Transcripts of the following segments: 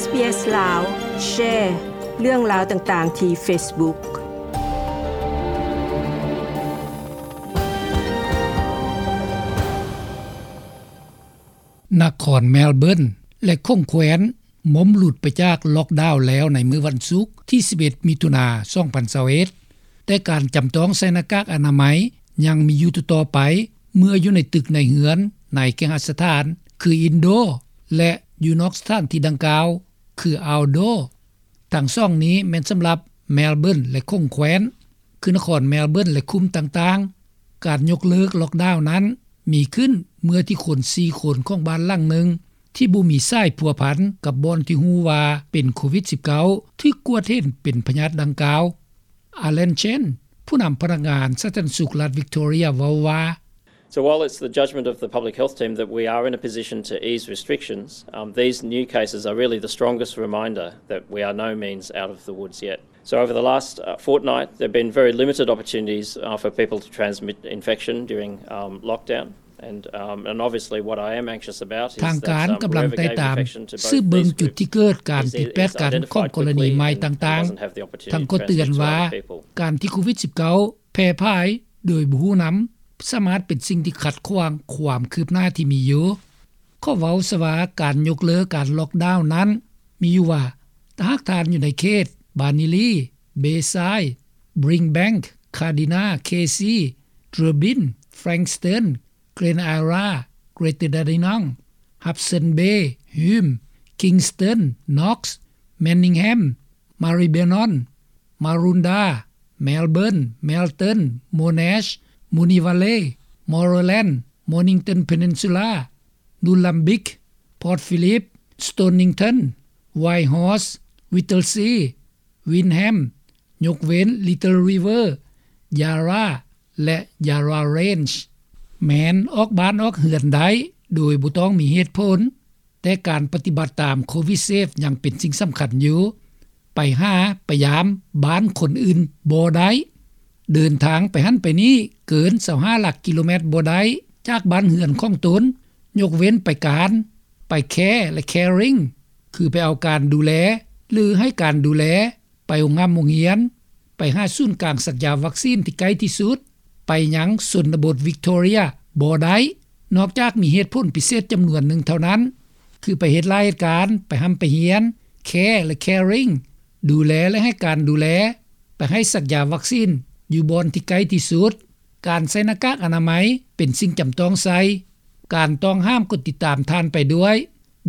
ເອສ ລາວ ແຊເລື່ອງລາວຕ່າງໆທີ່ເຟສບຸກ. ນະຄອນແມລເບີນ ແລະ ຂົງແຄວ້ນ ໝົມຫຼຸດໄປຈາກລັອກດາວແລ້ວໃນມື້ວັນສຸກທີສິບເອັດ ມິຖຸນາ ສອງພັນຊາວເອັດ ແຕ່ການຈຳຕ້ອງໃສ່ໜ້າກາກອະນາໄມຍັງມີຢູ່ຕໍ່ໆໄປ ເມື່ອຢູ່ໃນຕຶກໃນເຮືອນໃນເຄຫະສະຖານ ຄື ອິນໂດ ແລະ ຢູ່ນອກສະຖານທີ່ດັ່ງກ່າວ ຄື ເອົາໂດ. ທັງສອງນີ້ແມ່ນສຳລັບແມລເບີນ ແລະ ຂົງແຄວ້ນ ຄືນະຄອນແມລເບີນ ແລະ ຄຸ້ມຕ່າງໆ. ການຍົກເລີກລັອກດາວນັ້ນມີຂຶ້ນເມື່ອທີ່ຄົນສີ່ຄົນຂອງບ້ານຫຼັງໜຶ່ງ ທີ່ບໍ່ມີສາຍພົວພັນກັບບ່ອນທີ່ຮູ້ວ່າເປັນໂຄວິດສິບເກົ້າ ຖືກກວດເຫັນເປັນພະຍາດດັ່ງກ່າວ. ອາແລນ ເຊນ ຜູ້ນຳພະນັກງານສາທາລະນະສຸກລັດວິກຕໍເຣຍ ເວົ້າວ່າ: So while it's the judgment of the public health team that we are in a position to ease restrictions, um, these new cases are really the strongest reminder that we are no means out of the woods yet. So over the last, uh, fortnight, there have been very limited opportunities, uh, for people to transmit infection during, um, lockdown. And, um, and obviously what I am anxious about is that, um, whoever gave infection to both these groups is, is identified quickly and, and doesn't have the opportunity to transmit to other people. ທາງການກຳລັງໄຕ່ຕາມ ສືບເບິ່ງຈຸດທີ່ເກີດການຜິດແປດກັນຂອງກໍລະນີໃໝ່ຕ່າງໆ. ທັງກໍເຕືອນວ່າ ການທີ່ໂຄວິດສິບເກົ້າ ແຜ່ຜາຍໂດຍບໍ່ຮູ້ນຳ ສາມາດເປັນສິ່ງທີ່ຂັດຂວາງຄວາມຄືບໜ້າທີ່ມີຢູ່. ຂໍເວົ້າຊະວ່າ ການຍົກເລີກການລັອກດາວນັ້ນມີຢູ່ວ່າ ຖ້າຫາກທ່ານຢູ່ໃນເຂດ ບານີລີ, ເບຊາຍ, ບຣິງແບັງ, ຄາດີນາ, ເຄຊີ, ເຕີບິນ, ແຟຣັງສະເຕີນ, ເກຣນໄອຣາ, ເກຣເຕີດາດີນອງ, ຮັບເຊິນເບ, ຮີມ, ຄິງສະເຕີນ, ນັອກ, ແມນນິງແຮມ, ມາຣີເບນອນ, ມາຣູນດາ, ແມລເບີນ, ແມລເຕີນ, ໂມນາຊ, ມູນີວາເລ, ມໍໂຣແລນ, ໂມນິງຕັນເພເນີນຊູລາ, ນູນລຳບິກ, ພອດຟີລິບ, ສະໂຕນນິງຕັນ, ໄວຮອສ, ວິດເທິລຊີ, ວິນແຮມ, ຍົກເວັ້ນ ລິດເທິລຣີເວີ, ຢາຣາ ແລະ ຢາຣາເຣນ. ແມ່ນອອກບ້ານອອກເຮືອນໄດ້ໂດຍບໍ່ຕ້ອງມີເຫດຜົນ, ແຕ່ການປະຕິບັດຕາມໂຄວິດເຊຟຍັງເປັນສິ່ງສຳຄັນຢູ່. ໄປຫາໄປຢາມບ້ານຄົນອື່ນບໍ່ໄດ້. ເດີນທາງໄປຫັ້ນໄປນີ້ເກີນຊາວຫ້າຫຼັກກິໂລແມັດບໍ່ໄດ້ຈາກບ້ານເຮືອນຂອງຕົນ, ຍົກເວັ້ນໄປການ, ໄປແຄ ແລະ ແຄຣິງ ຄືໄປເອົາການດູແລ ຫຼື ໃຫ້ການດູແລ, ໄປໂຮງຮ່ຳໂຮງຮຽນ, ໄປຫາສູນກາງສັກຢາວັກຊີນທີ່ໃກ້ທີ່ສຸດ, ໄປຍັງຊົນນະບົດວິກຕໍເຣຍບໍ່ໄດ້, ນອກຈາກມີເຫດຜົນພິເສດຈຳນວນໜຶ່ງເທົ່ານັ້ນ, ຄືໄປເຮັດລາຍການ, ໄປຮ່ຳໄປຮຽນ, ແຄ ແລະ ແຄຣິງ, ດູແລ ແລະ ໃຫ້ການດູແລ, ໄປໃຫ້ສັກຢາວັກຊີນຢູ່ບ່ອນທີ່ໃກ້ທີ່ສຸດ. ການໃສ່ໜ້າກາກອະນາໄມເປັນສິ່ງຈຳຕ້ອງໃສ່. ການຕ້ອງຫ້າມກໍຕິດຕາມທ່ານໄປດ້ວຍ.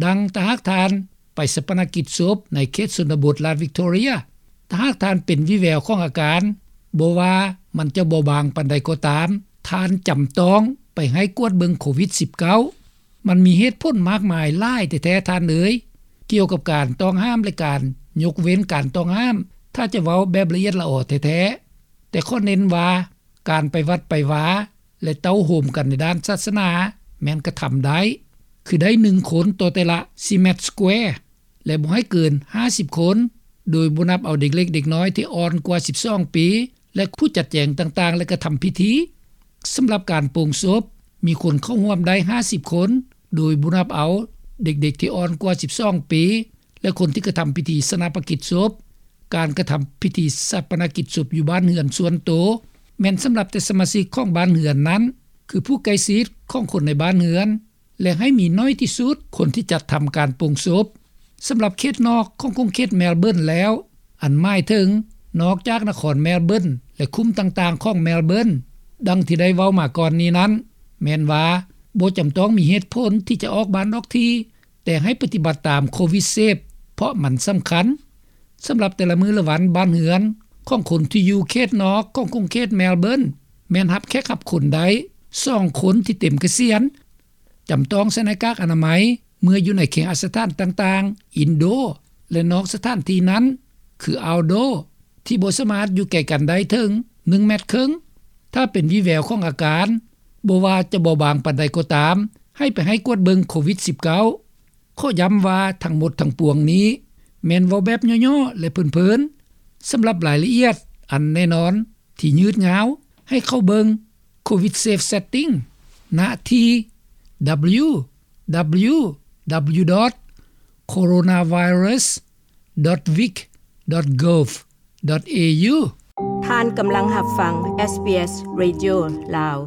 ດັ່ງຖ້າຫາກທ່ານໄປຊາປະນະກິດສົບໃນເຂດຊົນນະບົດລັດວິກຕໍເຣຍ, ຖ້າຫາກທ່ານເປັນວີແວວຂອງອາການ, ບໍ່ວ່າມັນຈະເບົາບາງປານໃດກໍຕາມ, ທ່ານຈຳຕ້ອງໄປໃຫ້ກວດເບິ່ງໂຄວິດສິບເກົ້າ. ມັນມີເຫດຜົນມາກມາຍຫຼາຍແທ້ໆທ່ານເອີຍ, ກ່ຽວກັບການຕ້ອງຫ້າມ ແລະ ການຍົກເວັ້ນການຕ້ອງຫ້າມ, ຖ້າຈະເວົ້າແບບລະອຽດລະອໍແທ້ໆ. ແຕ່ຂໍເນັ້ນວ່າ ການໄປວັດໄປວາ ແລະ ເຕົ້າໂຮມກັນໃນດ້ານສາສະໜາແມ່ນກະທຳໄດ້, ຄືໄດ້ໜຶ່ງຄົນຕໍ່ແຕ່ລະສີ່ແມັດສະແກວ ແລະ ບໍ່ໃຫ້ເກີນຫ້າສິບຄົນ, ໂດຍບໍ່ນັບເອົາເດັກເລັກເດັກນ້ອຍທີ່ອ່ອນກວ່າສິບສອງປີ ແລະ ຜູ້ຈັດແຈງຕ່າງໆ ແລະ ກະທຳພິທີ. ສຳລັບການໂປ່ງສົບ, ມີຄົນເຂົ້າຮ່ວມໄດ້ຫ້າສິບຄົນ, ໂດຍບໍ່ນັບເອົາເດັກໆທີ່ອ່ອນກວ່າສິບສອງປີ ແລະ ຄົນທີ່ກະທຳພິທີຊາປະນະກິດສົບ. ການກະທຳພິທີຊາປະນະກິດສົບຢູ່ບ້ານເຮືອນສ່ວນໂຕ ແມ່ນສຳລັບແຕ່ສະມາຊິກຂອງບ້ານເຮືອນນັ້ນ, ຄືຜູ້ໃກ້ຊິດຂອງຄົນໃນບ້ານເຮືອນ, ແລະ ໃຫ້ມີໜ້ອຍທີ່ສຸດຄົນທີ່ຈັດທຳການໂປ່ງສົບ. ສຳລັບເຂດນອກຂອງຂົງເຂດແມລເບີນແລ້ວ, ອັນໝາຍເຖິງນອກຈາກນະຄອນແມລເບີນ ແລະ ຄຸ້ມຕ່າງໆຂອງແມລເບີນ, ດັ່ງທີ່ໄດ້ເວົ້າມາກ່ອນນີ້ນັ້ນ, ແມ່ນວ່າບໍ່ຈຳຕ້ອງມີເຫດຜົນທີ່ຈະອອກບ້ານອອກທີ່, ແຕ່ໃຫ້ປະຕິບັດຕາມໂຄວິດເຊຟ ເພາະມັນສຳຄັນ. ສຳລັບແຕ່ລະມື້ລະວັນ, ບ້ານເຮືອນຂອງຄົນທີ່ຢູ່ເຂດນອກຂອງຂົງເຂດແມລເບີນ ແມ່ນຮັບແຂກຮັບຄົນໄດ້ສອງຄົນທີ່ເຕັມກະສຽນ. ຈຳຕ້ອງໃສ່ໜ້າກາກອະນາໄມເມື່ອຢູ່ໃນເຄຫະສະຖານຕ່າງໆ, ອິນໂດ ແລະ ນອກສະຖານທີ່ນັ້ນ ຄື ເອົາໂດ ທີ່ບໍ່ສາມາດຢູ່ໄກກັນໄດ້ເຖິງໜຶ່ງແມັດເຄິ່ງ. ຖ້າເປັນວີແວວຂອງອາການ, ບໍ່ວ່າຈະເບົາບາງປານໃດກໍຕາມ, ໃຫ້ໄປໃຫ້ກວດເບິ່ງໂຄວິດສິບເກົ້າ. ຂໍຢ້ຳວ່າທັງໝົດທັງປວງນີ້ແມ່ນເວົ້າແບບຫຍໍ້ໆ ແລະ ເພີນໆ. ສຳລັບລາຍລະອຽດອັນແນ່ນອນທີ່ຍືດຍາວ, ໃຫ້ເຂົ້າເບິ່ງ ໂຄວິດເຊຟເຊັດຕິ້ງ ນະທີ່ ດັບເບິນຢູ ດັບເບິນຢູ ດັບເບິນຢູ ດອດ coronavirus dot vic dot gov dot a u. ທ່ານກຳລັງຮັບຟັງ ເອສບີເອສ Radio ລາວ.